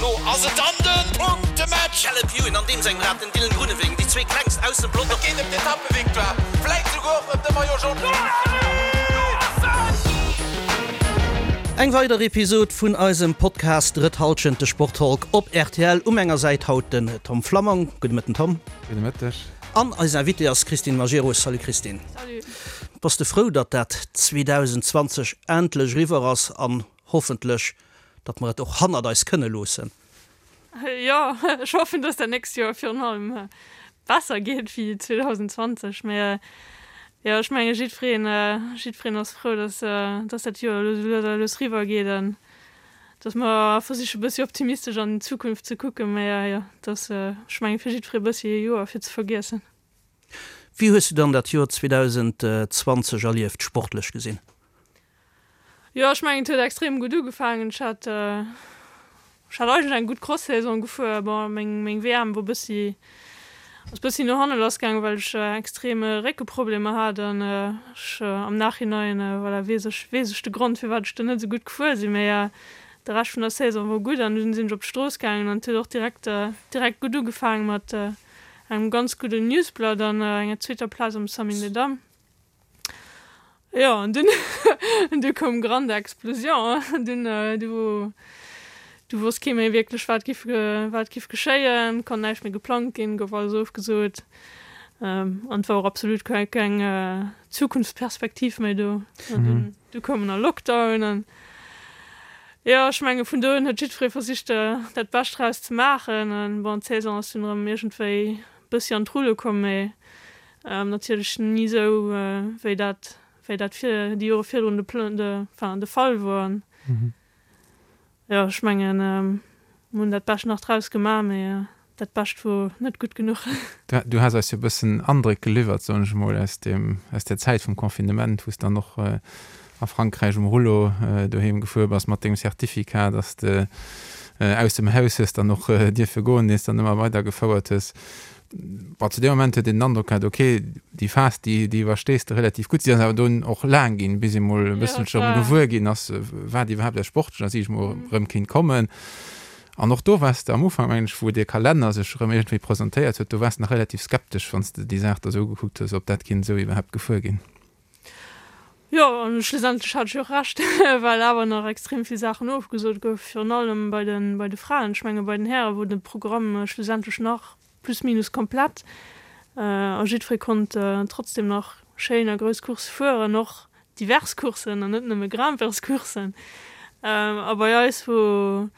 Lo ass et dann de Punktematch! Caleb Ewan an deem sengem Rad, den Dylan Groenewegen, déi zwee klengst aus dem Pelotong. Et geet ëm d'Etappevictoire, vläit souguer och ëm de Maillot Jaune. Eng weider Episod vun eisem Podcast Drëtt Halschent, de Sporttalk op rtl. U menger Säit haut den Tom Flammang. Gudde Mëtten Tom. Gudde Mëtteg. An eis Invitée ass Christine Majerus. Salut Christine. Salut. Bass de frou, datt dat 2020 endlech eriwwer ass an hoffentlech, datt mer et och hannert eis kënne loossen? Jo, ech hoffen, datt dat nächst Joer virun allem besser geet wéi 2020. Mä jo, ech menge jiddwereen, jiddwereen ass frou, datt, datt dat Joer elo sou lues a lues eriwwer geet an datt mer versiche bëssi optimistesch an d'Zukunft ze kucken. Mä jo, et ass, ech menge fir jiddweree bëssi e Joer fir ze vergiessen. Wéi hues du dann dat Joer 2020 erlieft, sportlech gesinn? Jo, ech mengen et huet extrem gutt ugefaangen. Ech hat ech hat eigentlech eng gutt Cross-Saison gefuer. Bon, meng meng WM wor bëssi ass bëssi no hanne lass gaangen, well ech extrem Réckeproblemer hat an ech am Nachhinein voilà weess ech weess ech de Grond firwat ech do net esou gutt gefuer sinn. Mee de Rescht vun der Saison wor gutt an dunn sinn ech op d'Strooss gaangen an et huet och direkt direkt gutt ugefaangen mat engem ganz gudden Newsblatt an enger zweeter Plaz am Samyn des Dames. Jo, an dunn, du koum grande Explosion, dunn, du, du wosst kee méi wierklech, wat giff, wat giff geschéien, konnt näischt méi geplangt ginn, gouf alles ofgesot, an et war och absolut keng, keng Zukunftsperspektiv méi do. An dunn, du koum en Lockdown an, jo, ech menge vun do un huet jiddweree versicht, dat Bescht draus ze maachen, an bon, d'Saison ass dunn erëm iergendwéi bëssi an d'Rulle komm, mee Natierlech ni esou wéi dat wéi dat vir déi Jore virdrun de de enfin de Fall wor. An jo ech mengen mir hunn dat Bescht nach draus gemaach, mee dat Bescht wor net gutt genuch. Du has eis jo e bëssen Andréck geliwwert, soen ech emol, aus dem aus der Zäit vum Confinement, wou s dann och a Frankräich um Rullo doheem gefuer bass mat dengem Certificat, dass de aus dem Haus hues dann och dierfe goen, deen s dann ëmmer weider gefouert hues. Bon, zu deem Moment huet een den Androck gehat, ok, déi Phas, déi, déi iwwerstees de relativ gutt. Si ass awer dunn och laang ginn, bis ee mol e bësselche erëm gewuer ginn ass, wat iwwerhaapt aus sportlecher Siicht mol erëm kéint kommen. An och do waars de am Ufank, mengen ech, wou dee Kalenner sech erëm iergendwéi presentéiert huet, do waars de nach relativ skeptesch, wann s de déi Saach da sou ugekuckt hues, ob dat kéint esou iwwerhaapt gefuer ginn. Jo, an schlussendlech hat ech jo och Recht, well awer nach extrem vill Saachen ofgesot goufen, virun allem bei de bei de Fraen. Ech menge bei den Häre wor de Programm schlussendlech nach plus minus komplett a jiddweree konnt trotzdem nach schéin a grouss Coursse fueren, och divers Courssen an net nëmme Grimpeurscourssen. A bei eis wor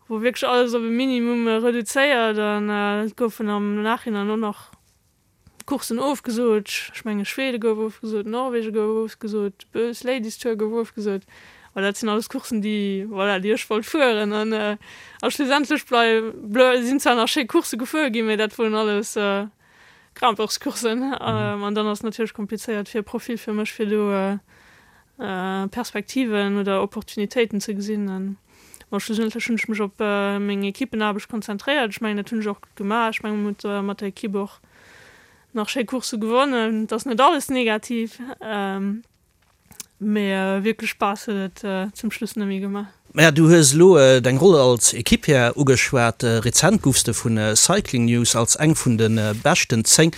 wor wierklech alles op e Minimum reduzéiert an et goufen am Nachhinein och nach Courssen ofgesot, ech menge Schwede gouf ofgesot, Norwege gouf ofgesot, d'Bös Ladies Tour gouf ofgesot. Voilà, dat sinn alles Courssen, déi, voilà, déi ech wollt fueren. An a schlussendlech blei blei sinn zwar nach schéi Coursse gefuer ginn, mee dat woren alles Grimpeurscourssen. An dann ass et natierlech komplizéiert fir e Profil fir mech, fir do Perspektiven oder Opportunitéiten ze gesinn. An bon, schlussendlech hunn ech mech op meng Equippenaarbecht konzentréiert. Ech mengen, dat hunn ech och gutt gemaach. Ech mengen, mir hunn mat der Equipe och nach schéi Coursse gewonnen. Et ass net alles negativ, mee wierklech Spaass huet et zum Schluss net méi gemaach. Maja, du hues elo deng Roll als Equipier ugeschwat. Rezent goufs de vu Cycling News als eng vun de beschten 10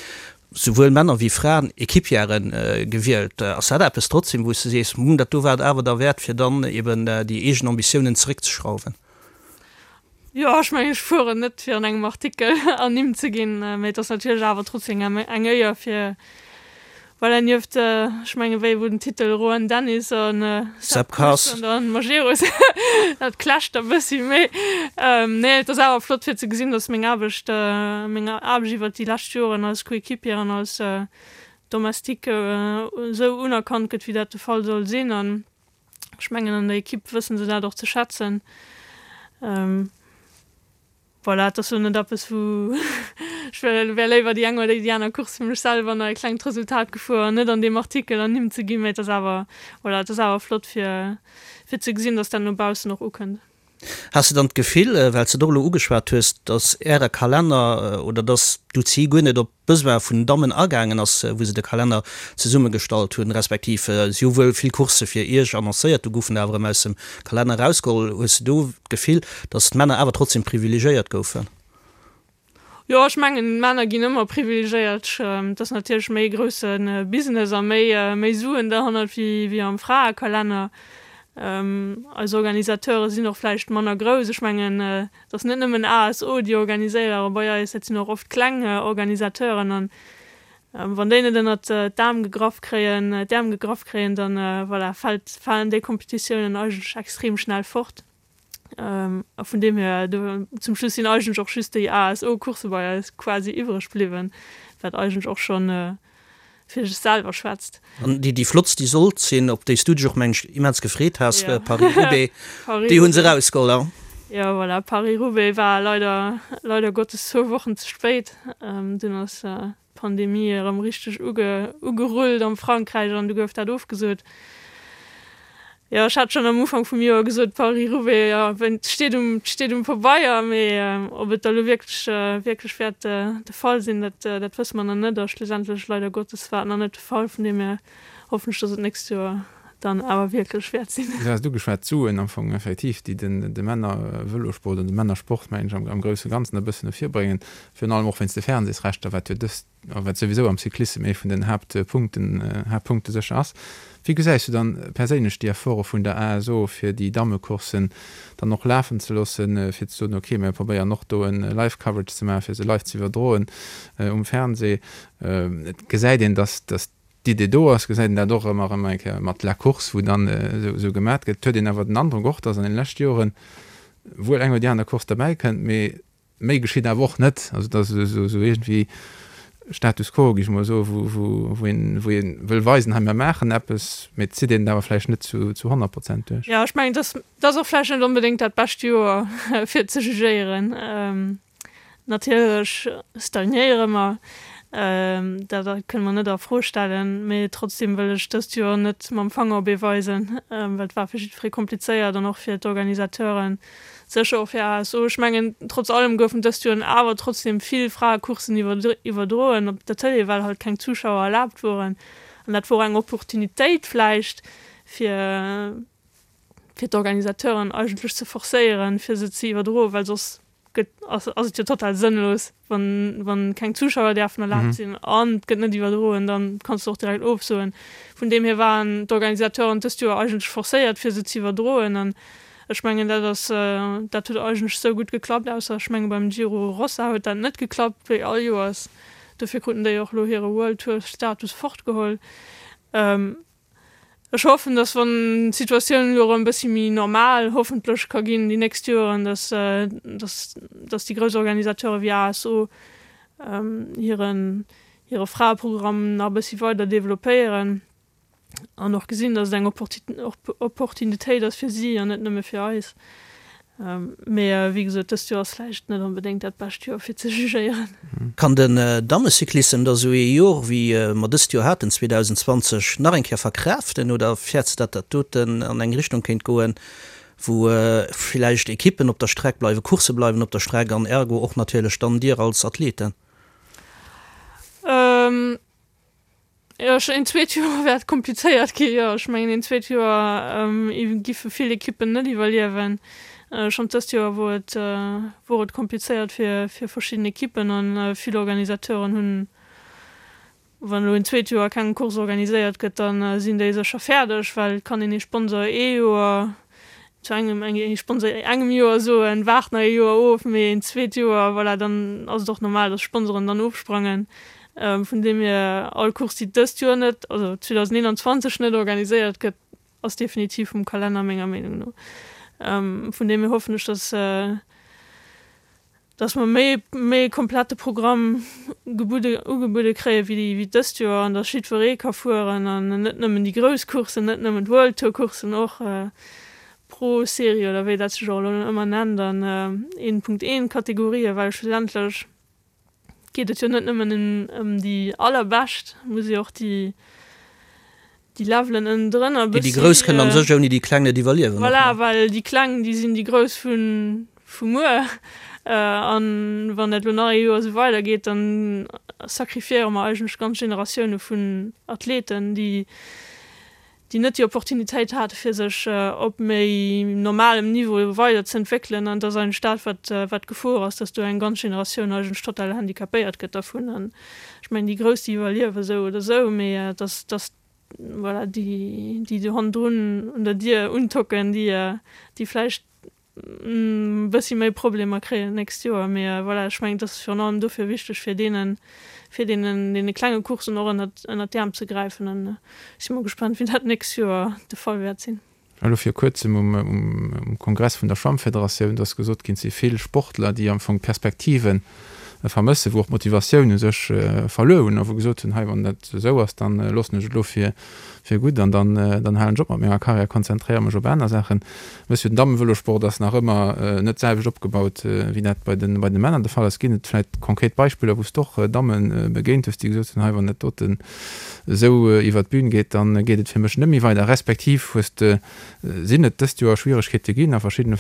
souwuel Männer wéi Fraen, Equipiere gewielt. Ass dat eppes trotzdem, wou s de sees, Hm, dat do war et awer derwäert, fir dann eben déi eegen Ambitiounen zeréckzeschrauwen? Jo, ech mengen, ech fueren net, fir an engem Artikel ernimmt ze ginn, mee et ass natierlech awer trotzdem eng Éier, fir Voilà, nieft, ech menge wéi wou den Titel Rohan Dennis an Sepp Kuss an dann Majerus, dat clasht e bëssi, mee nee, et ass awer flott fir ze gesinn, datt meng Aarbecht, meng Aarbecht iwwert déi lescht Joren als Coéquipier an als Domestique esou unerkannt gëtt, wéi dat de Fall soll sinn. An ech mengen an der Equipe wësse se dat och ze schätzen. Voilà, et ass lo net eppes wou ech wär wär léiwer déi eng oder déi aner Course fir mech selwer nach e klengt Resultat gefuer an net an deem Artikel ernimmt ze ginn, mee et ass awer, voilà, et ass awer flott fir fir ze gesinn, dass dat no baussen och ukënnt. Has de dann d'Gefill, well s de et och elo ugeschwat hues, datt Äre Kalenner oder datt d'UCI guer net op d'Besoin vun den Dammen agaangen ass, wou se de Kalenner zesummegestallt hunn, respektiv si hu wuel vill Coursse fir Iech annoncéiert, du goufen der awer erëm aus dem Kalenner erausgeholl. Hues de do d'Gefill, datt d'Männer awer trotzdem privilegéiert goufen? Jo, ech mengen, d'Männer ginn ëmmer privilegéiert. Et ass natierlech méi e grousse Business a méi, méi Suen derhannert wéi, wéi am Fraekalenner. Eis Organisateure sinn och vläicht manner grouss. Ech mengen, et ass net nëmmen ASO, déi organiséiere bei eis, dat sinn och oft kleng Organisateuren. An wann déi net ënnert d'Aarm gegraff kréien, d'Äerm gegraff kréien, dann, voilà, fält, falen déi Kompetitiounen eigentlech extrem schnell fort. A vun deem hier, do zum Schluss sinn eigentlech och just déi ASO-Coursse bei eis quasi iwwreg bliwwen, wat eigentlech och schonn fir sech selwer schwätzt. An déi, déi flottst, déi sollt sinn, op déi s du dech och, mengen ech, immens gefreet has, Paris-Roubaix, déi hu se erausgeholl, hein? Jo, voilà, Paris-Roubaix war leider, leider Gottes zwou Wochen ze spéit. Dunn ass d'Pandemie erëm richteg ugerullt am Frankräich an du gouf dat ofgesot. Jo, ech hat schonn am Ufank vum Joer gesot, Paris-Roubaix, jo, et steet um, et steet um Pabeier, mee ob et da lo wierklech, wierklech wäert de Fall sinn, dat, dat wësse mer nach net. A schlussendlech, leider Gottes, war et nach net de Fall. Vun deem hier hoffen ech, dass et d'nächst Joer dann awer wierklech wäert sinn. Du has et ugeschwat, d'Suen am Fong effektiv, déi den, de Männer-Vëlosport an de Männersport, mengen ech, am, am grousse Ganzen e bëssen no vir bréngen. Virun allem och wéinst de Fernsehsrechter, wat jo dëst, a wat souwisou am Cyclissem ee vun den Haaptpunkten, Haaptpunkte sécher ass. Wéi gesäis du dann perséinlech déi Efforte vun der ASO, fir déi Dammecourssen dann och lafen ze loossen, fir ze soen, okay, mir probéieren och do e Live-Coverage ze maachen, fir se live ze iwwerdroen um Fernseh? Et gesäit een, dass, dass d'Idee do ass, gesäit een dat och ëmmer erëm eng Kéier mat La Course, wou dann esou gemat gëtt. Et huet een awer den Androck och, dass an den leschte Joren wuel eng oder déi aner Course derbäi kënnt, mee Méi geschitt awer och net. Also et ass esou iergendwéi Status quo, géif ech mol soen, wou een wou ee wëll weisen, hei mir maachen eppes, mee et zitt een et awer vläicht net zu 100 Prozent duerch. Jo, ech mengen, et ass och vläicht net onbedéngt dat bescht Joer fir ze jugéieren. Natierlech stagnéiere mer, dat kënne mer net a Fro stellen, mee trotzdeem wëll ech dëst Joer net mam Fanger op ee weisen, well et war fir jiddweree komplizéiert an och fir d'Organisateuren. Sécher och fir ASO. Ech mengen, trotz allem goufen dëst Joer awer trotzdem vill Fraecourssen iwwerdroen op der Tëlee, well halt keng Zuschauer erlaabt woren. An dat wor eng Opportunitéit vläicht, fir fir d'Organisateuren eigentlech ze forcéieren, fir se ze iwwerdroen, well soss gëtt ass et jo total sënnlos. Wann, wann keng Zuschauer däerfen erlaabt sinn an et gëtt net iwwerdroen, dann kanns de och direkt ofsoen. Vun deem hier waren d'Organisateuren dëst Joer eigentlech forcéiert fir se ze iwwerdroen an ech mengen dat ass, dat huet eigentlech esou gutt geklappt, ausser ech menge beim Giro Rossa huet dat net geklappt wéi all Joers. Dofir kruten déi och elo hire World Tour Status fortgeholl. Ech hoffen, dass wann d'Situatioun elo erëm e bëssi méi normal hoffentlech ka ginn déi nächst Joeren, dass, dass, dass déi grouss Organisateure wéi ASO hiren, hire Fraeprogramm nach e bëssi weider developpéieren an och gesinn, dass et eng Opportunitéit ass fir si an net nëmme fir eis. Mee wéi gesot, dëst Joer ass vläicht net onbedéngt dat bescht Joer fir ze jugéieren. Kann den Dammecyclissem da sou ee Jor wéi mer dëst Joer haten, 2020, nach eng Kéier verkraaften oder fäerts de dat dat doten an eng Richtung kéint goen, wou villäicht Ekippen op der Streck bleiwen, Coursse bleiwen op der Streck an ergo och natierlech dann dir als Athleten? Jo, ech, een zweet Joer wäert komplizéiert ginn, jo. Ech mengen, een zweet Joer giffe vill Ekippen net iwwerliewen. Schonn dëst Joer wor et, wor et komplizéiert fir, fir verschidden Ekippen an vill Organisateuren hunn, wann elo een zweet Joer keng Course organiséiert gëtt, da sinn déi sécher fäerdeg, well et kann een ee Sponsor ee Joer zu engem ee Sponsor engem Joer soen, waart nach ee Joer of, mee een zweet Joer, voilà, dann ass et och normal, datt Sponsoren dann ofsprangen. Vun deem hier, all Course, déi dëst Joer net, also 2021 net organiséiert gëtt, ass definitiv vum Kalenner menger Meenung no. Vun deem hier hoffen ech, datt dass mer méi méi e komplette Programm gebudde ugebuede kréie wéi wéi dëst Joer an dass jiddweree ka fueren an net nëmmen déi grouss Courssen, net nëmmen d'World Tour Courssen, och Pro Serie oder wéi dat sech och elo ëmmer nennt an 1.1 Kategorien, well schlussendlech geet et jo net nëmmen ëm déi allerbescht, muss jo och déi. Déi Levelen ënnendrënner e bëssi. Déi Grouss kënnen a sech ouni déi Kleng net iwwerliewen. Voilà, well déi Kleng, déi sinn déi Grouss vu vu muer. An wann dat elo nach ee Joer esou weidergeet, dann sacrifiéiere mer eigentlech ganz Generatioune vun Athleten, déi déi net déi Opportunitéit hate fir sech op méi normalem Niveau weiderzëentwéckelen. An et ass eigentlech dat, wat wat d'Gefor ass, datt do eng ganz Generatioun eigentlech total handicapéiert gëtt dervun. An Ech mengen, déi Grouss, déi iwwerliewe sou oder sou, mee dass, dass, voilà, déi, déi do hannendrun un der Dier untocken, déi, déi vläicht e bëssi méi Problemer kréien d'nächst Joer. Mee voilà, ech mengen, et ass virun allem dofir wichteg, fir deenen, fir deenen, deene klenge Courssen och ënnert, ënnert d'Äerm ze gräifen. An ech si mol gespannt, wéi dat d'nächst Joer de Fall wäert sinn. Elo vir kuerzem um Kongress vun der Schwammfederatioun, do ass gesot ginn, et si vill Sportler, déi am Fong d'Perspektive vermëssen, wou och d'Motivatioun u sech verluer hunn a wou gesot hunn, hei wann dat esou ass, da loossen ech et elo fir gutt an dann halen ech op mat menger Karriär, konzentréiere mech op aner Saachen. Wëss jo, den Dammenvëlosport ass nach ëmmer net d'selwecht opgebaut, wéi dat bei de Männer de Fall ass. Ginn et vläicht konkret Beispiller, wou s de och Damme begéint hues, déi gesot hunn, hei wann dat doten esou iwwert d'Bün geet, da geet et fir mech net méi weider, respektiv hues de, sinn et dëst Joer Schwieregkeete ginn a verschiddene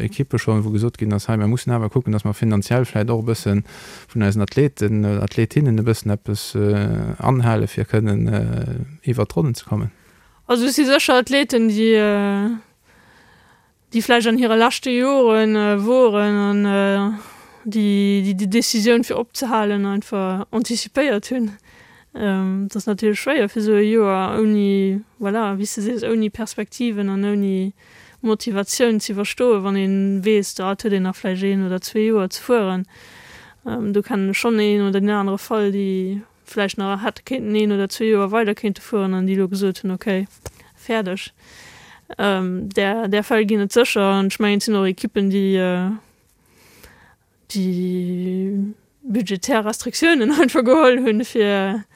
Ekippe schonn, wou gesot ginn ass, hei mir mussen awer kucken, datt mer finanziell vläicht och e bësse vun eisen Athleten oder Athletinnen e bëssen eppes anhale fir kënnen iwwert d'Ronnen ze kommen. Also et si sécher Athleten, déi déi vläicht an hire leschte Jore woren an déi déi Decisioun fir opzehalen einfach anticipéiert hunn. Et ass natierlech schwéier fir esou e Joer ouni, voilà, wéi s de sees, ouni Perspektiven an ouni Motivatioun ze iwwerstoen, wann ee weess, da et huet een nach vläicht een oder zwee Joer ze fueren. Do kennen ech schonn een oder deen anere Fall, déi vläicht nach hätte kéinten een oder zwee Joer weider kéinte fueren an déi elo gesot hunn, okay, fäerdeg. Där, där Fäll ginn et sécher an ech mengen, et sinn och Ekippen, déi, déi budgetär Restriktiounen einfach geholl hunn, fir,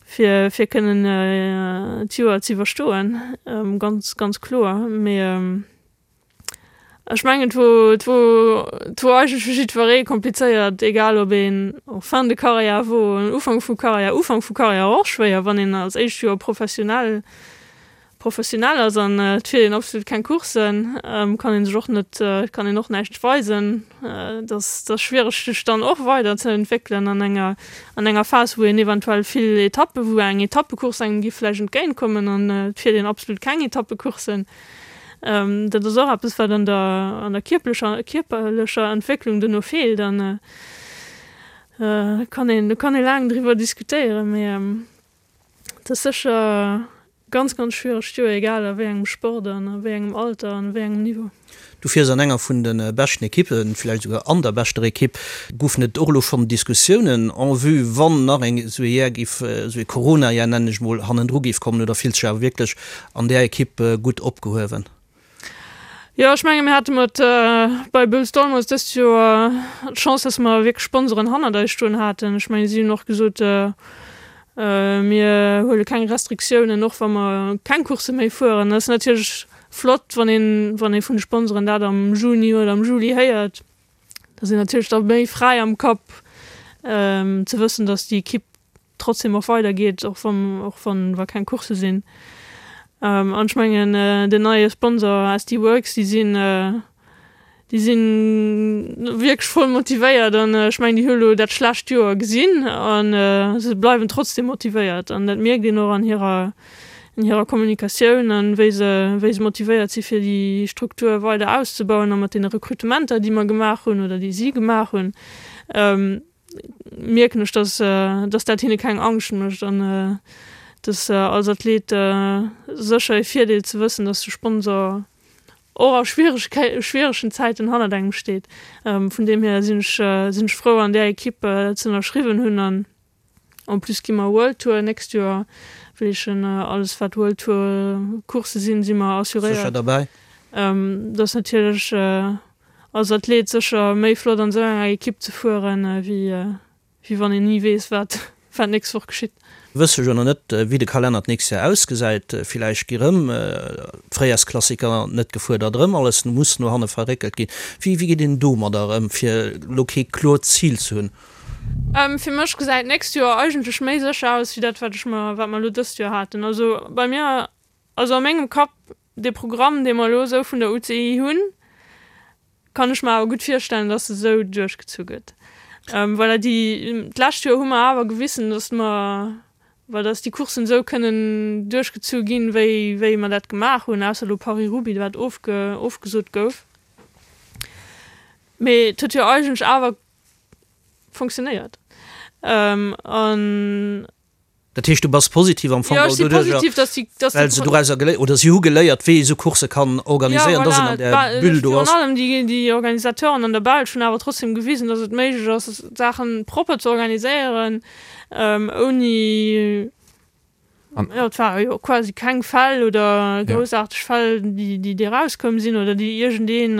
fir, fir kënnen d'Joer ze iwwerstoen, ganz, ganz kloer. Mee Ech mengen, et wor, et wor, et wor eigentlech fir jiddweree komplizéiert, egal ob een en fin de carrière wor, en Ufank vu Carrière, Ufank vu Carrière och schwéier, wann een als éischt Joer professionell, professionell ass an et fiert een absolut keng Courssen, kann ee sech och net, kann een och näischt weisen. Et ass, et ass schwiereg sech dann och weider ze entwéckelen an enger, an enger Phas, wou een eventuell vill Etappe, wou eng Etappecourse engem géif vläicht entgéintkommen an et fiert een absolut keng Etappecourssen. Dat ass och eppes, wat an der, an der kierplecher, kierperlecher Entwécklung duerno feelt. An do kann een, do kann ee laang driwwer diskutéieren, mee et ass sécher ganz, ganz schwieregt Joer, egal a wéi engem Sport an a wéi engem Alter an wéi engem Niveau. Du fiers an enger vun de beschten Ekippen, villäicht esouguer an der beschter Ekipp. Goufen et och elo schonn Diskussiounen en vue, wann nach eng esou ee Jar géif, esou ee Corona-Jar nennen ech mol, hannendru géif kommen, oder fills dech awer wierklech an där Ekipp gutt opgehuewen? Jo, ech menge mir hate mat bei Boels Dolmans dëst Joer d'Chance, dass mer wierklech Sponsoren hannert eis stoen haten. Ech menge si hunn och gesot, mir huele keng Restriktiounen, och wa mer keng Coursse méi fueren. Dat ass natierlech Flott, wann een, wann ee vun de Sponsoren dat am Juni oder am Juli héiert. Da sinn natierlech da méi fräi am Kapp, ze wëssen, datt déi Ekipp trotzdem och weidergeet, och wann, och wann, wa keng Coursse sinn. An ech mengen, den neie Sponsor SD Worx, déi sinn, Déi si wierklech voll motivéiert an ech mengen, déi hu elo dat schlecht Joer gesinn a se bleiwen trotzdeem motivéiert an dat mierkt een och an hirer, an hirer Kommunikatioun an wéi se, wéi se motivéiert si fir déi Struktur weider auszebauen a mat deene Rekrutementer, déi mer gemaach hunn oder déi si gemaach hunn, mierken ech, dass, dass dat hinne keng Angscht mécht an dass als Athlet sécher e Virdeel ze wëssen, dass de Sponsor och a schwieregen Zäiten hannert engem steet. Vun deem hier sinn ech sinn ech frou an där Ekipp ze ënnerschriwwen hunn an en plus gi mer World Tour nächst Joer, wéi ech alles wat World Tour Coursse sinn, si mer assuréiert. Sécher derbäi. Dat ass natierlech als Athlet sécher méi flott an esou enger Ekipp ze fueren wéi Wéi wann een ni weess, wat wat d'nächst Woch geschitt. Wësse jo nach net, wéi de Kalenner d'nächst Joer ausgesäit. Villäicht gi rëm d'Fréijarsklassiker net gefuer, datt erëm alles muss no hanne verréckelt ginn. Wéi wéi geet een domadder ëm, fir elo kee kloert Zil ze hunn? Fir mech gesäit d'nächst Joer eigentlech méi sécher aus wéi dat wat ech mer, wat mer elo dëst Joer haten. Also bei mir, also a mengem Kapp, dee Programm dee mer elo esou vun der UCI hunn, kann ech mer awer gutt virstellen, dass e sou duerchgezu gëtt. Voilà, déi, d'lescht Joer hu mer awer gewissen, dass mer, well dass déi Courssen esou kënnen duerchgezu ginn, wéi, wéi mer dat gemaach hunn, ausser elo Paris-Roubaix, wat ofge, ofgesot gouf. Mee et huet jo eigentlech awer funktionéiert. An. Dat heescht, du bass positiv am Fong geholl doduerjer, well se dorauser geléiert, oder si hu geléiert, wéi ee sou Coursse kann organiséieren, dass een an där Bulle do ass. Virun allem déi Organisateuren an der Belsch hunn awer trotzdem gewisen, dass et méiglech ass, Saache propper ze organiséieren, ouni, jo, et ware jo quasi keng Fäll oder groussaarteg Fäll, déi erauskomm sinn oder déi iergendeen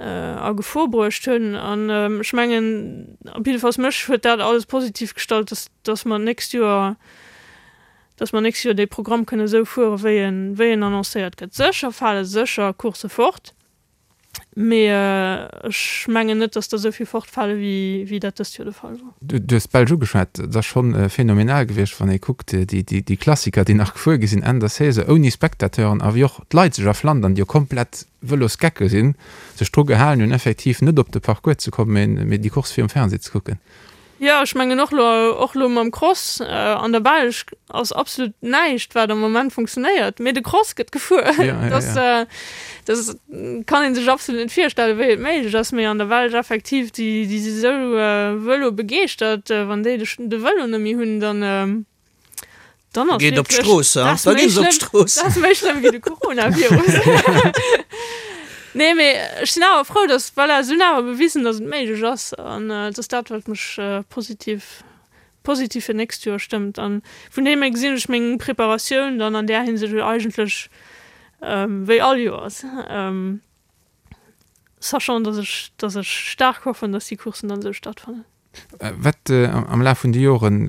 a Gefor bruecht hunn. An ech mengen, op jiddefalls mech huet dat alles positiv gestallt, dass, dass mer d'nächst Joer, dass mer d'nächst Joer dee Programm kënne esou fuere wéi en, wéi en annoncéiert gëtt. Sécher fale sécher Coursse fort, mee ech mengen net, dass der esou vill fortfale wéi, wéi dat dëst Joer de Fall wor. Du hues d'Belsch ugeschwat. Et ass scho phänomenal gewiescht, wann ee kuckt, déi, déi, déi Klassiker, déi nach gefuer gi sinn Enn der Saison ouni Spectateuren a wéi och d'Leit sech a Flandern, déi jo komplett Vëlosgecke sinn, sech dru gehalen hunn, effektiv net op de Parcours ze kommen, mee déi Course virum Fernseh ze kucken. Jo, ech mengen och elo, och elo mam Cross an der Belsch ass absolut näischt, wat am Moment funktionéiert, mee de Cross gëtt gefuer. Dat, dat kann ee sech absolut net virstellen, wéi et méiglech ass, mee an der Belsch effektiv, déi, déi si sou vëlobegeeschtert, wann déi de, de Vëlo net méi hunn, dann. Dann ass Geet op d'Strooss, ha? Da ginn se op d'Strooss. Dat ass méi schlëmm wéi de Coronavirus. Nee, mee ech sinn awer frou, dass, voilà, se hunn awer bewisen, dass et méiglech ass. An et ass dat, wat mech positiv, positiv fir d'nächst Joer stëmmt. An vun deem hier gesinn ech meng Preparatioun dann an där Hinsicht eigentlech wéi all Joers. Sachant, dass ech, dass ech staark hoffen, dass déi Courssen dann esou stattfannen. Wat am Laf vun de Joren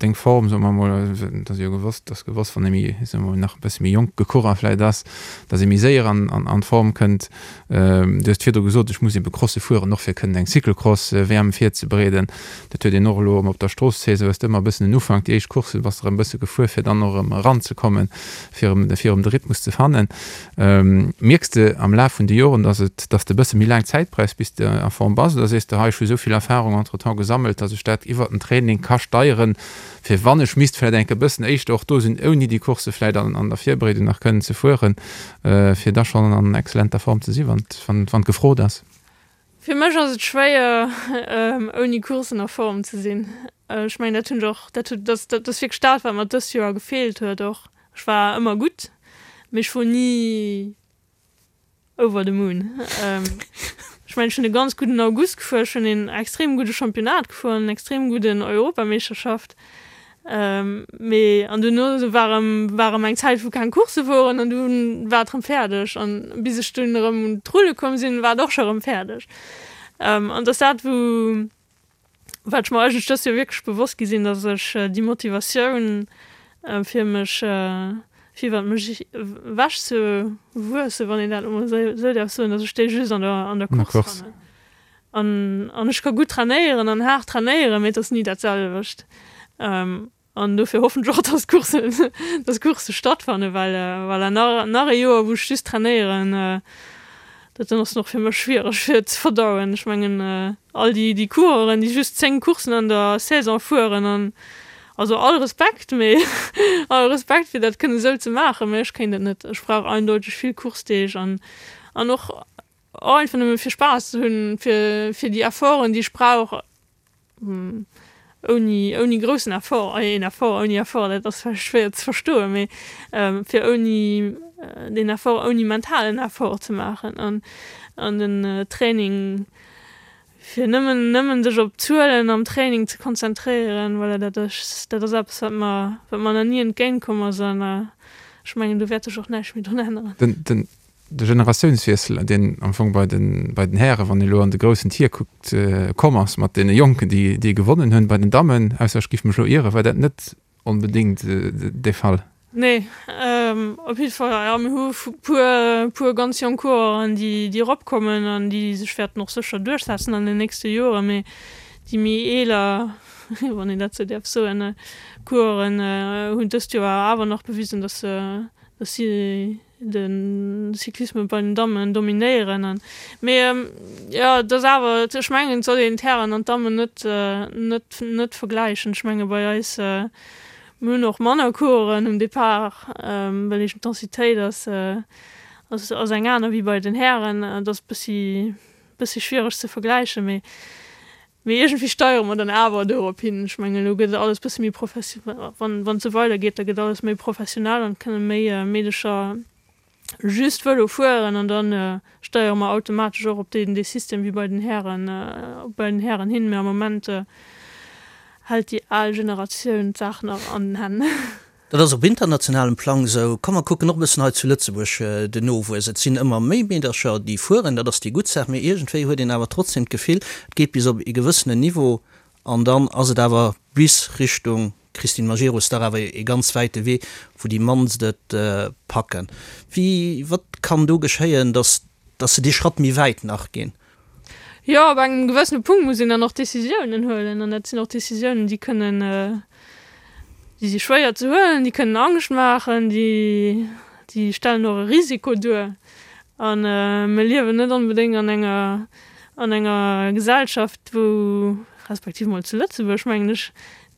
deng Form, soe mer emol, et ass jo gewosst, ass gewosst, wann ee méi, soe mer nach e bësse méi jonk gecoureur vläicht ass, datt ee méi séier an an d'Form kënnt. Du hues virdru gesot, ech muss ebe Crosse fueren, och fir kënnen eng Cyclocross-WM virzebereeden. Dat huet een och elo erëm op der Strooss-Saison, hues de ëmmer e bëssen en Ufank, déi éischt Coursse bass de erëm e bësse gefuer, fir dann och erëm eranzekommen, fir erëm, fir erëm de Rhythmus ze fannen. Mierks de am Laf vun de Joren, dass et, dass de e bësse méi laang Zäit brauchs, bis de a Form bass, oder sees de, hei, ech hu esou vill Erfahrung entretemps gesammelt, dass ech dat iwwert den Training ka steieren, fir wann ech misst vläicht enk e bëssen éischter och do sinn, ouni déi Coursse vläicht an an der Virbereedung nach kënnen ze fueren, fir da schonn an exzellenter Form ze si wann wann wann gefrot ass? Fir mech ass et schwéier, ouni Courssen a Form ze sinn. Ech mengen, dat hunn ech och, dat huet, dat dat ass wierklech dat, wat mer dëst Joer gefeelt huet och. Ech war ëmmer gutt, mee ech wor ni over the moon. Ech mengen, ech hunn e ganz gudden August gefuer, ech hunn een extrem gudde Championnat gefuer an en extrem gudden Europameeschterschaft. Mee an duerno war erëm, war erëm eng Zäit wou keng Coursse woren an dunn war et erëm fäerdeg an bis ech dunn erëm un d'Rulle komm sinn, war et och scho erëm fäerdeg. An et ass dat wou, wat ech mer eigentlech dëst Joer wierklech bewosst gi sinn, datt ech déi Motivatioun fir mech, fir iwwer mech ewech ze wuessen, wann een dat elo mol esou däerf soen, datt ech déi just an der an der Course fannen. An, an ech ka gutt trainéieren an haart trainéieren, mee et ass ni dat selwecht. An dofir hoffen ech och, dass d'Courssen, dass d'Coursse stattfannen, well voilà, nach, nach ee Joer, wou ech just trainéieren, dat dann ass och fir mech schwiereg fir ze verdauen. Ech mengen, all déi, déi Coureuren, déi just 10 Courssen an der Saison fueren an, also all Respekt, mee all Respekt fir dat kënne sou ze maachen, mee ech kéint et net. Ech brauch eindeuteg vill Coursedeeg an, an och Och einfach nëmme fir Spaass ze hunn, fir, fir déi Efforten, déi ech brauch, ouni, ouni groussen Effort, een Effort ouni Effort, dat ass vläicht schwéier ze verstoen, mee fir ouni deen Effort, ouni mentalen Effort ze maachen an, an den Training, fir nëmmen, nëmmen sech op d'Zuelen am Training ze konzentréieren, voilà, dat ass, dat ass eppes, wat mer, wat mer nach ni entgéint komm ass an ech mengen, do wäert sech och näischt méi drun änneren. Den, den De Generatiounswiessel, deen am Fong bei den, bei den Hären, wann ee elo an de groussen Tier kuckt, komm ass mat deene Jonken, déi, déi gewonnen hunn. Bei den Dammen, ausser ech giff mech elo ieren, war dat net onbedéngt de Fall. Nee, op jidde Fall, jo, mir hu puer, puer ganz jonk Coureuren, déi, déi eropkommen an déi sech wäerten och sécher duerchsetzen an den nächste Joren. Mee. Déi méi eeler, wann een dat sou däerf soen, Coureuren hunn dëst Joer awer nach bewisen, dass se, dass si de Cyclisme bei den Dammen dominéieren. An, mee jo, et ass awer, ech mengen, et soll een d'Hären an d'Dammen net, net, net vergläichen. Ech menge bei eis, mir hunn och manner Coureuren um Depart, well eeben d'Densitéit ass, ass, ass eng aner wéi bei den Hären. Et ass bëssi Bëssi schwiereg ze vergläichen, mee mee iergendwéi steiere mer dann awer dorop hin. Ech mengen, elo gëtt alles bëssi méi professi-, wann wann et sou weidergeet, da gëtt alles méi professionell an et kënne méi Meedecher just Vëlo fueren an da steiere mer automatesch och op deen dee System wéi bei den Hären bei den Hären hin. Mee am Moment hält déi al Generatioun d'Saach nach an den Hänn. Dat ass op internationalem Plang esou. Komm mer kucken och e bëssen hei zu Lëtzebuerg den Nowuess. Et sinn ëmmer méi Meedercher, déi fueren, dat ass déi gutt Saach, mee iergendwéi huet een awer trotzdem d'Gefill, et geet bis op ee gewëssenen Niveau an dann ass et awer bis Richtung Christine Majerus dach awer ee ganz wäite Wee, wou déi mannst et packen. Wéi, wat kann do geschéien, datt, datt se dee Schratt méi wäit nach ginn? Jo, op engem gewëssene Punkt muss een dann och Décisiounen huelen. An dat sinn och Décisiounen, déi kënnen, déi si schwéier ze huelen, déi kënnen Angscht maachen, déi, déi stellen och e Risiko duer. A mir liewen net onbedéngt an enger, an enger Gesellschaft, wou, respektiv mol zu Lëtzebuerg, mengen ech,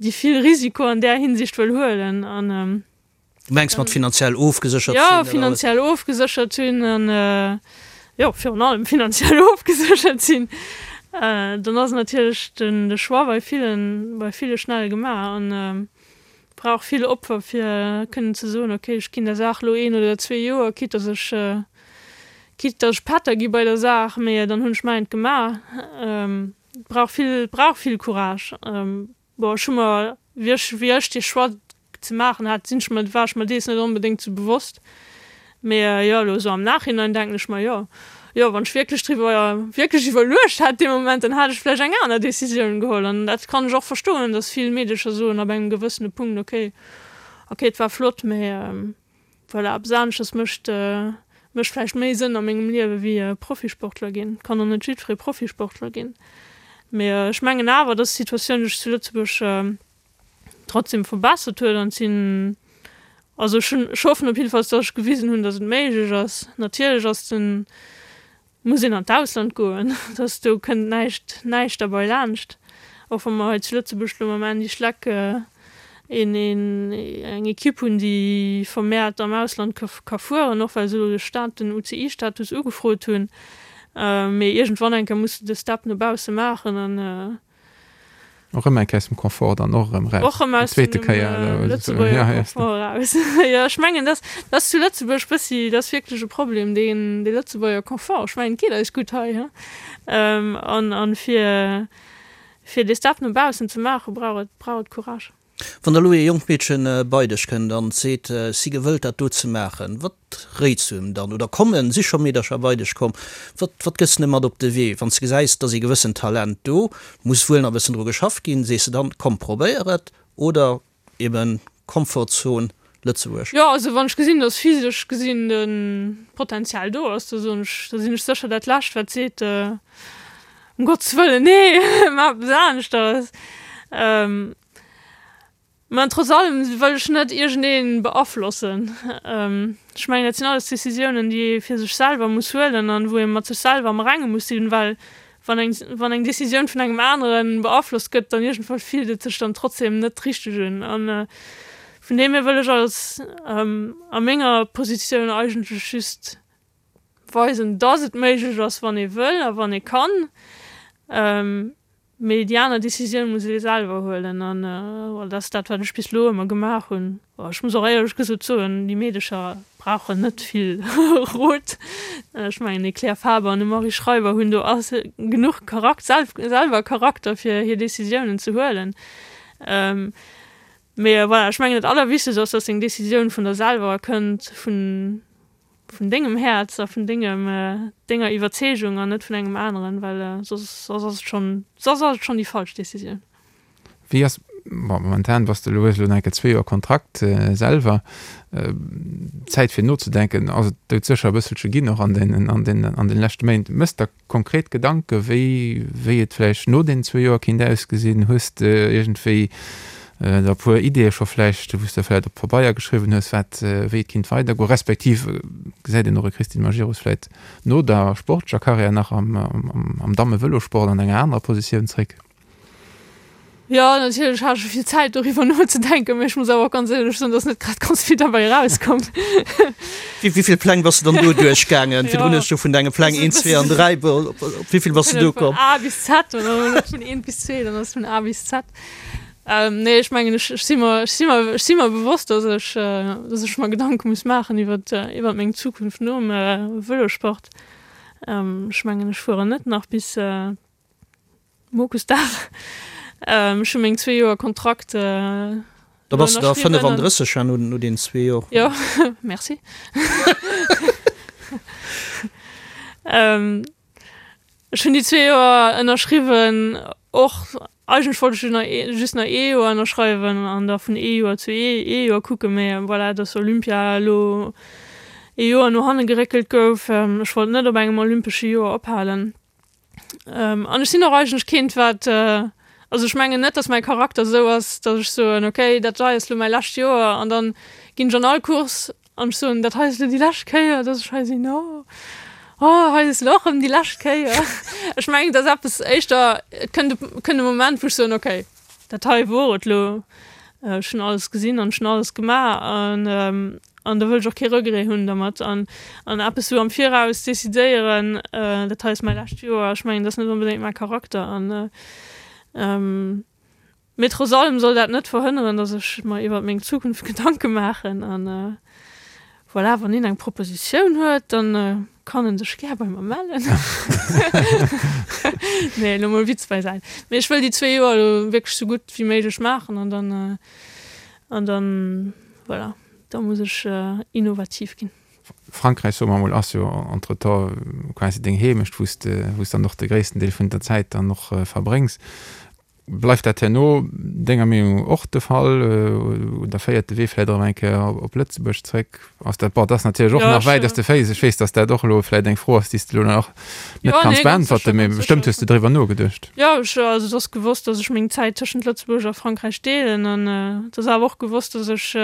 déi vill Risiko an där Hinsicht wëll huelen. An Du mengs mat finanziell ofgeséchert sinn? Jo, finanziell ofgeséchert sinn an, jo, virun allem finanziell ofgeséchert sinn. Dann ass natierlech den de Choix bei villen, bei ville schnell gemaach an brauch vill Opfer fir kënnen ze soen, okay, ech ginn der Saach elo een oder zwee Joer, quitte dass ech, quitte dass ech Pätter gi bei der Saach, mee dann hunn ech mäint gemaach. Et brauch vill, et brauch vill Courage. Bon, ech hu mer, wéi ech, wéi ech dee Choix ze maachen hat, sinn ech mer, war ech mer dees net onbedéngt sou bewosst. Mee jo, elo esou am Nachhinein denken ech mer, jo, jo, wann ech wierklech driwwer, wierklech iwwerluecht hätt dee Moment, dann hätt ech vläicht eng aner Decisioun geholl. An dat kann ech och verstoen, dass vill Meedecher soen ab engem gewëssene Punkt, okay, okay, et war flott, mee Voilà, eppes aneschters mécht mécht vläicht méi Sënn a mengem Liewe wéi Profisportler ginn. Kann och net jiddweree Profisportler ginn. Mee ech mengen awer, dass d'Situatioun sech zu Lëtzebuerg trotzdem verbessert huet an et sinn, also ech hunn, ech hoffen op jiddefalls, dass ech gewisen hunn, dass et méiglech ass. Natierlech ass den Muss een an d'Ausland goen, dass do kënnt näischt, näischt derbei laanscht. Och wa mer hei zu Lëtzebuerg elo mam Andy Schleck een, een, eng Equipe hunn, déi vermehrt am Ausland ka, ka fueren, och well se elo de Stat, den UCI-Status ugefrot hunn. Mee iergendwann eng Kéier muss de de Step no bausse maachen an, Och erëm eng Kéier aus dem Confort dann och erëm raus. Och erëm aus dem Lëtzebuerger Confort raus. Jo, ech mengen, dass dass zu Lëtzebuerg bëssi, dat ass wierklech e Problem, deen dee Lëtzebuerger Confort. Ech mengen, et geet eis gutt hei, he. An an fir fir dee Step no baussen ze maachen, brauch et brauch et Courage. Wann da lo ee jonkt Meedchen bei dech kënnt an seet, si gewëllt dat do ze maachen, wat réits du em dann? Oder kommen, si scho Meedercher bei dech komm, wat, wat gëss de mat op de Wee? Wann s de gesäis, et ass ee gewëssen Talent do, muss wuel nach e bëssen dru geschafft ginn, sees de dann, komm probéier et, oder eben Komfortzon Lëtzebuerg? Jo, also wann ech gesinn, dass physesch gesinn de Potenzial do ass, da soen ech, da sinn ech sécher dat Lescht wat seet, ëm Gottes Wëllen, nee, maach eppes aneschters. Mä trotz allem wëll ech net iergendee beaflossen. Ech mengen, dat sinn alles Decisiounen, déi ee fir sech selwer muss huelen an wou ee mat sech selwer am Renge muss sinn, well wann eng, wann eng Decisioun vun engem anere beaflosst gëtt, dann iergendwann fillt et sech dann trotzdem net richteg un. An vun deem hier wëll ech als a menger Positioun eigentlech just weisen, dass et méiglech ass, wann ee wëll a wann ee kann. Mee déi aner Decisioun muss ee selwer huelen an dat ass dat, wat ech bis elo ëmmer gemaach hunn. Ech muss och éierlech gesot soen, déi Meedecher brauchen net vill Rot. Ech mengen, déi Claire Faber an de Marie Schreiber hunn do genuch Charak-, selwer Charakter, fir hir Decisiounen ze huelen. Mee voilà, ech mengen, dat Allerwichtegst ass, dass seng Decisioun vun der selwer kënnt, vun vun dengem Häerz a vun dengem, denger Iwwerzeegung an net vun engem aneren, well soss, soss ass et schonn, soss ass et schonn déi falsch Decisioun. Wéi ass. Bon, momentan bass de elo, hues elo nach eng Kéier zwee Joer Kontrakt selwer. Zäit fir nozedenken ass et doudsécher e bësselche ginn, och an den, an den, an den leschte Méint. Méchs der konkret Gedanke wéi, wéi et vläicht no deenen zwee Joer kéint ausgesinn? Hues de iergendwéi der e puer Ideeë scho vläicht, wou s de vläicht op Pabeier geschriwwen hues, wat, wéi et kéint weidergoen? Respektiv gesäit een och e Christine Majerus vläicht no der sportlecher Karriär nach am, am, am Damme-Vëlosport an enger anerer Positioun zréck? Jo, natierlech hat ech vill Zäit doriwwer nozedenken, mee ech muss awer och ganz éierlech soen, dass net grad ganz vill derbäi erauskomm. Wéi vill Pläng bass de dann do duerchgaangen? Virdrun hues du vun denge Pläng 1, 2 an 3, op wéi vill bass de do komm? Vun A bis Z oder net vun 1 bis 2, dann ass et vun A bis Z. Nee, ech mengen, ech si mer, ech si mer, ech si mer bewosst, dass ech, dass ech mer Gedanke muss maachen iwwer, iwwer meng Zukunft nom Vëlosport. Ech mengen, ech fueren net nach bis. Mokusdag. Ech hu meng zwee Joer Kontrakt. Da bass de da 35 ja no den zwee Joer. Jo, merci. Ech hunn déi zwee Joer ënnerschriwwen, och eigentlech wollt ech just nach ee Joer ënnerschreiwen an da vun ee Joer zu ee Joer kucken, mä voilà, dass Olympia elo ee Joer no hanne geréckelt gouf. Ech wollt net op engem olympesche Joer ophalen. An ech sinn och eigentlech keent, wat, also ech mengen net, datt mäi Charakter esou ass, datt ech soen, okay, dat hei ass elo mäi lescht Joer an dann ginn ech an all Course an ech soen, dat hei ass elo déi lescht Kéier, datt ech hei sinn, oh, oh, hei ass elo och erëm déi lescht Kéier. Ech mengen, et ass eppes éischter, et kënnt e, kënnt e Moment, wou ech soen, okay, dat hei wor et elo, ech hunn alles gesinn an ech hunn alles gemaach an an da wëll ech och kee Regret hunn dermat an an eppes sou am Viraus decidéieren, dat hei ass mäi lescht Joer, ech mengen, dat ass net onbedéngt mäi Charakter an mee trotz allem soll dat net verhënneren, datt ech mer iwwert meng Zukunft Gedanke maachen an voilà, wann een eng Propositioun huet, dann kann en sech gär bei mer mellen. Nee, elo mol Witz beisäit. Mee ech wëll déi zwee Joer elo wierklech sou gutt wéi méiglech maachen an dann an dann voilà, da muss ech innovativ ginn. Frankräich, soe mer emol, ass jo entretemps quasi deng Heemecht, wou s de, wou s dann och de gréissten Deel vun der Zäit dann och verbréngs. Bleift dat herno denger Meenung och de Fall oder féiert de Wee vläicht erëm eng Kéier op Lëtzebuerg zréck? Ass dat, bon, dat ass natierlech och nach wäit aus de Féiss. Ech weess, datt dat och elo vläicht eng Fro ass, déi s de elo nach net kanns beäntwerten, mee bestëmmt hues de driwwer nogeduecht. Jo, ech, also et ass gewosst, datt ech meng Zäit tëschent Lëtzebuerg a Frankräich deelen an et ass awer och gewosst, datt ech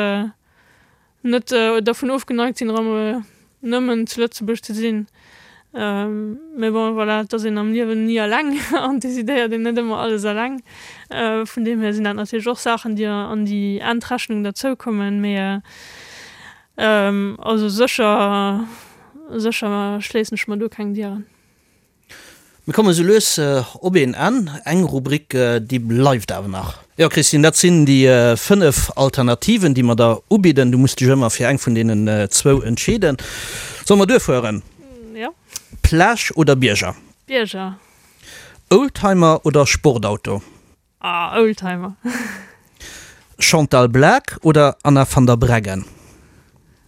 net dervun ofgeneigt sinn, erëm nëmmen zu Lëtzebuerg ze sinn. Mee bon, voilà, et ass een am Liewen ni eleng an decidéiert een net ëmmer alles eleng. Vun deem hier sinn dat natierlech och Saachen, déi an déi Endrechnung derzoukommen. Mee also sécher, sécher schléissen ech mer do keng Dieren. Mir kommen esou lues op een Enn. Eng Rubrik, déi bleift awer nach. Jo, Christine, dat sinn déi 5 Alternativen, déi mer der ubidden. Du muss dech ëmmer fir eng vun deenen zwou entscheeden. Solle mer duerfueren? Jo. Plage oder Bierger? Bierger. Oldtimer oder Sportauto? Ah, Oldtimer. Chantal Blaak oder Anna van der Breggen?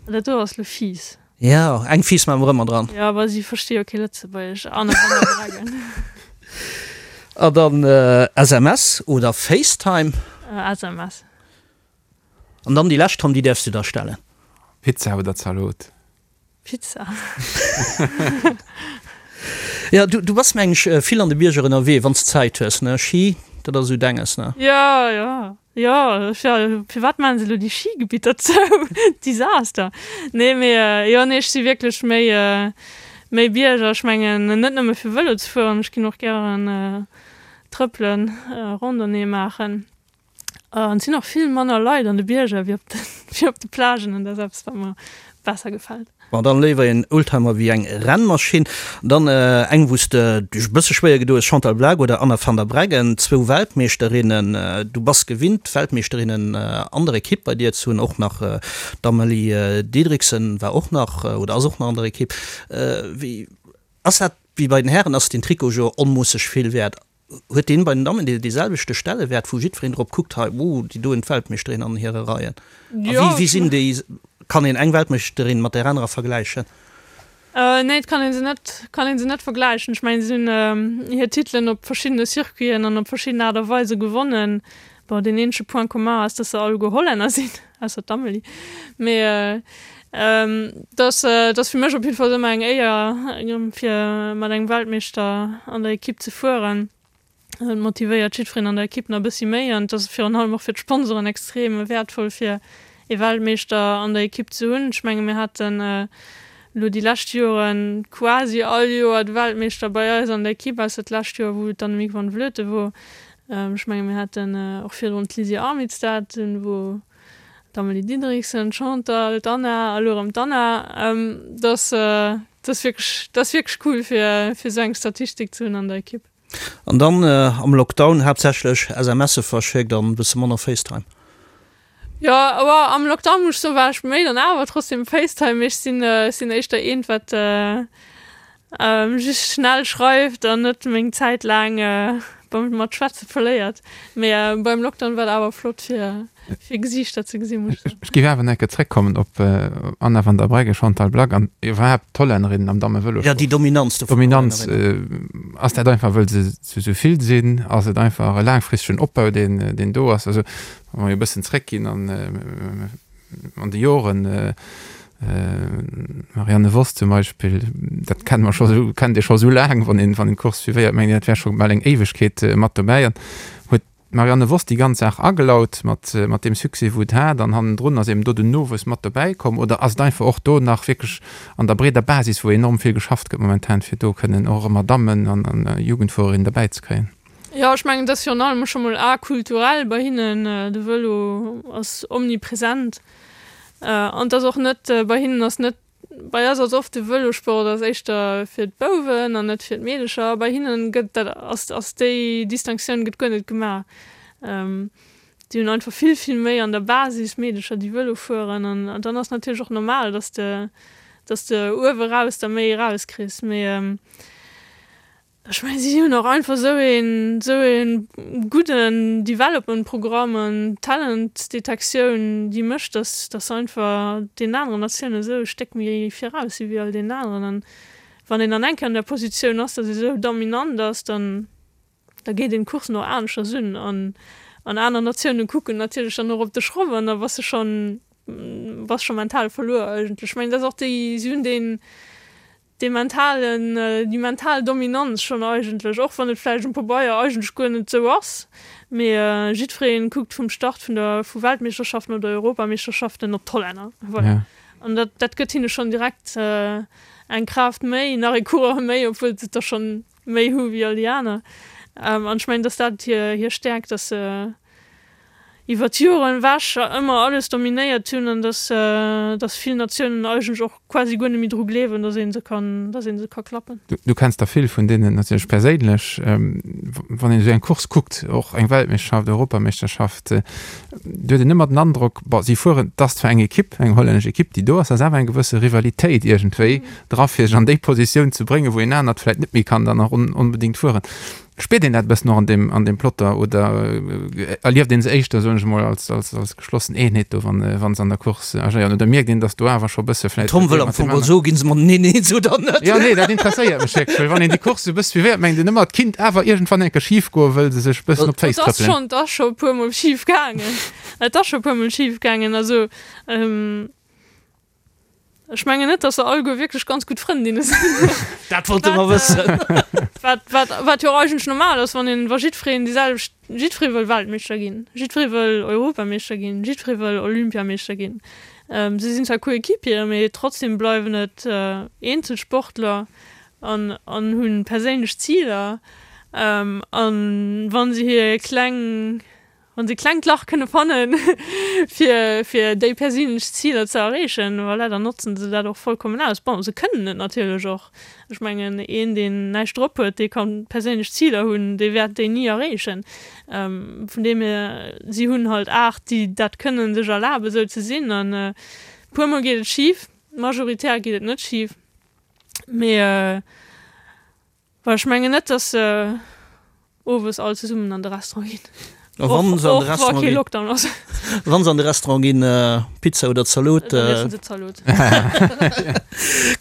Dat do ass lo fies. Jo, eng fies maache mer ëmmer dran. Jo, awer si versti jo kee Lëtzebuergesch. Anna van der Breggen. A dann SMS oder FaceTime? SMS. An dann déi lescht, Tom, déi däerfs du da stellen. Pizza oder Zalot? Pizza. Ja, du, du bass meng ech vill an de Bierger ënnerwee, wann s Zäit hues, ne? Ski, dat ass esou denges, ne? Ja, ja, ja, ja, firwat maachen se elo déi Skigebitter zou? Desaster. Nee, mee jo, nee, ech si wierklech méi, méi Bierger. Ech mengen net nëmme fir Vëlo ze fueren, ech ginn och gären trëppelen, Randonnée maachen. An et sinn och vill manner Leit an de Bierger wéi op de, wéi op de Plagen an dat ass eppes, wat mer besser gefält. Bon, dann léiwer een Oldtimer wéi eng Rennmaschinn. Dann eng, wou s de dech e bësse schwéier gedo hues, Chantal Blaak oder Anna van der Breggen, zwou Weltmeeschterinnen. Du bass gewinnt, Weltmeeschterinnen an der Ekipp bei dir ze hunn, och nach d'Amalie Dideriksen war och nach oder ass och nach an der Ekipp. Wéi ass dat wéi bei den Hären? Ass den Trikot jo onmoosseg vill wäert? Huet deen bei den Dammen dee selwechte Stellewäert, wou jiddwereen drop kuckt, hei, oh, déi do hunn d'Weltmeeschterin an hire Reien? A wéi, wéi sinn déi, kann een eng Weltmeeschterin mat där anerer vergläichen? Nee, et kann ee se net, kann ee se net vergläichen. Ech mengen, si hunn hir Titelen op verschiddene Circuiten an op verschidden Aart a Weise gewonnen. Bon, deen eenzege Point commun ass, dass se alleguer Hollänner sinn, ausser d'Amelie. Mee et ass, et ass fir mech op jidde Fall ëmmer eng Éier, fir mat engem Weltmeeschter an der Ekipp ze fueren. Et motivéiert jiddwereen an der Ekipp nach e bëssi méi an et ass virun allem och fir d'Sponsoren extrem wäertvoll, fir ee Weltmeeschter an der Ekipp ze hunn. Ech menge mir haten elo déi lescht Jore quasi all Joer de Weltmeeschter bei eis an der Ekipp, ausser d'lescht Joer, wou et d'Annemiek van Vleuten wor. Ech menge mir haten och virdrun d'Lizzie Armitstead, dunn wor d'Amalie Dideriksen, d'Chantal, d'Anna a lo erëm d'Anna. Dat ass wierklech, dat ass wierklech cool fir esou eng Statistik ze hunn an der Ekipp. An dann am Lockdown haaptsächlech SMSe verschéckt an e bësse manner Facetime. Jo, awer am Lockdown muss ech soen, war ech méi dann awer trotzdem Facetime, mee ech sinn, ech sinn éischter eent wat just schnell schreift an net meng Zäit laang beim mat schwätze verléiert. Mee beim Lockdown war et awer flott fir fir Gesiichter ze gesinn, muss ech soen. Ech géif awer nach eng Kéier zréckkommen op Anna van der Breggen, Chantal Blaak an iwwerhaapt d'Hollännerinnen am Dammevëlosport. Jo, déi Dominanz do vun den Hollännerinnen. Dominanz, ass dat einfach wëll se esou vill sinn? Ass et einfach e laangfristegen Opbau deen deen do ass? Also Wa mer e bëssen zréckginn an an de Joren, Marianne Vos zum Beispill, dat kenne mer scho sou, kennt ee scho sou laang, wann een wann een d'Course suivéiert, mengt een, dat wär scho bal eng Éiwegkeet mat dobäi. An huet d'Marianne Vos déi ganz Saach agelaut mat mat deem Succès, wou et hat, an hannendrun ass eben do den Nowuess mat dobäi komm? Oder ass et einfach och do nach wierklech an der breeder Basis, wou enorm vill geschafft gëtt momentan, fir do kënnen och ëmmer Dammen an an Jugendfuererinnen dobäi ze kréien? Jo, ech mengen, et ass virun allem scho mol akulturell bei hinnen. De Vëlo ass omnipresent. An et ass och net, bei hinnen ass net, bei eis ass oft de Vëlosport ass éischter fir d'Bouwen an net fir d'Meedecher. Bei hinnen gëtt dat, ass, ass déi Distinctioun gëtt guer net gemaach. Déi hunn einfach vill, vill méi an der Basis Meedecher, déi Vëlo fueren. An dann ass natierlech och normal, dass de, dass de uewe raus der méi erauskriss. Mee Ech mengen, si hunn och einfach esou een, esou ee gudden Development-Programm an Talent-Detektioun, déi mécht, dass, dass se einfach deenen aneren Natiounen esou e Stéck méi viraus si wéi all deenen aneren. An wann een dann eng Kéier an där Positioun ass, dass ee esou dominant ass, dann, da geet een d'Coursen och aneschters un. An, an aner Natiounen kucken natierlech dann och op de Schroff an da bass de schonn, bass scho mental verluer eigentlech. Ech mengen, dat ass och déi, si hunn deen, dee mentalen, déi mental Dominanz schonn eigentlech, och wann et vläicht um Pabeier eigentlech guer net esou ass, mee jiddweree kuckt vum Start vun der, vu Weltmeeschterschaften oder Europameeschterschaften op d'Hollänner, voilà. An dat, dat gëtt hinne schonn direkt eng Kraaft méi, nach ee Coureur méi, obwuel se der schonn méi hu wéi all déi aner. An ech mengen, dass dat hir, hir Stäerkt, dass se iwwer d'Joren ewech ëmmer alles dominéiert hunn an dass, dass vill Natiounen eigentlech och quasi guer net méi dru gleewen, dass ee se kann, dass ee se ka klappen. Du kenns der vill vun deenen natierlech perséinlech. Wann een esou eng Course kuckt, och eng Weltmeeschterschaft, Europameeschterschaft, do huet een ëmmer den Androck, bon, si fueren, et ass zwar eng Ekipp, eng hollännesch Ekipp, déi do ass, ass awer eng gewësse Rivalitéit iergendwéi dra fir sech an déi Positioun ze bréngen, wou een anert vläicht net méi kann dann nach onbedéngt fueren. Spiert een dat e bëssen och an deem, an deem Plotter oder erlieft een se éischter, soen ech emol, als, als, als geschlossen Eenheet do, wann, wann se an der Course agéieren? Oder mierkt een, datt do awer scho e bësse vläicht Tom wëll am Fong mol soen, ginn se mateneen eens oder net? Jo, nee, dat interesséiert mech wierklech, well wann een déi Course esou e bësse suivéiert, mengt een ëmmer, et kinnt awer iergendwann eng Kéier schif goen, wëll se sech e bëssen op d'Féiss trëppelen. Et ass schonn, et ass scho e puermol schif gaangen. Et ass scho e puermol schif gaangen. Also, Ech mengen net, dass se alleguer wierklech ganz gutt Frëndinne sinn. Dat wollte mer wëssen. Wat, wat, wat jo och eigentlech normal ass, wann een, wa jiddwereen déi selwecht, jiddweree wëll Weltmeeschter ginn, jiddweree wëll Europameeschter ginn, jiddweree wëll Olympiameeschter ginn. Si sinn zwar Coéquipieren, mee trotzdem bleiwen et Eenzelsportler an, an hu perséinlech Ziler. An wa se hir kleng Wann se e klengt Lach kënne fannen, fir, fir déi perséinlech Ziler ze erreechen, voilà, dann notzen se dat och vollkommen aus. Bon, se kënnen et natierlech och. Ech mengen, een, deen näischt drop huet, dee ka perséinlech Ziler hunn, dee wäert déi ni erreechen. Vun deem hier, si hunn halt 8, déi dat kënnen sech erlaben, esou ze sinn. An e puermol geet et schif, majoritär geet et net schif, mee. Well ech mengen net, dass se owes all zesummen an de Restaurant ginn. A wann se an de Restaurant ginn? Lockdown ass. Wann se an de Restaurant ginn, Pizza oder Zalot? Dann iessen se Zalot.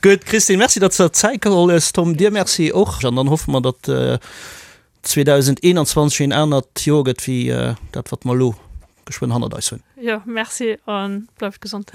Gutt, Christine, Merci, datt s de der Zäit geholl hues. Tom, dir Merci och. An dann hoffe mer, datt. 2021 een anert Joer gëtt wéi dat wat mer elo geschwënn hannert eis hunn. Jo, merci a bleift gesond.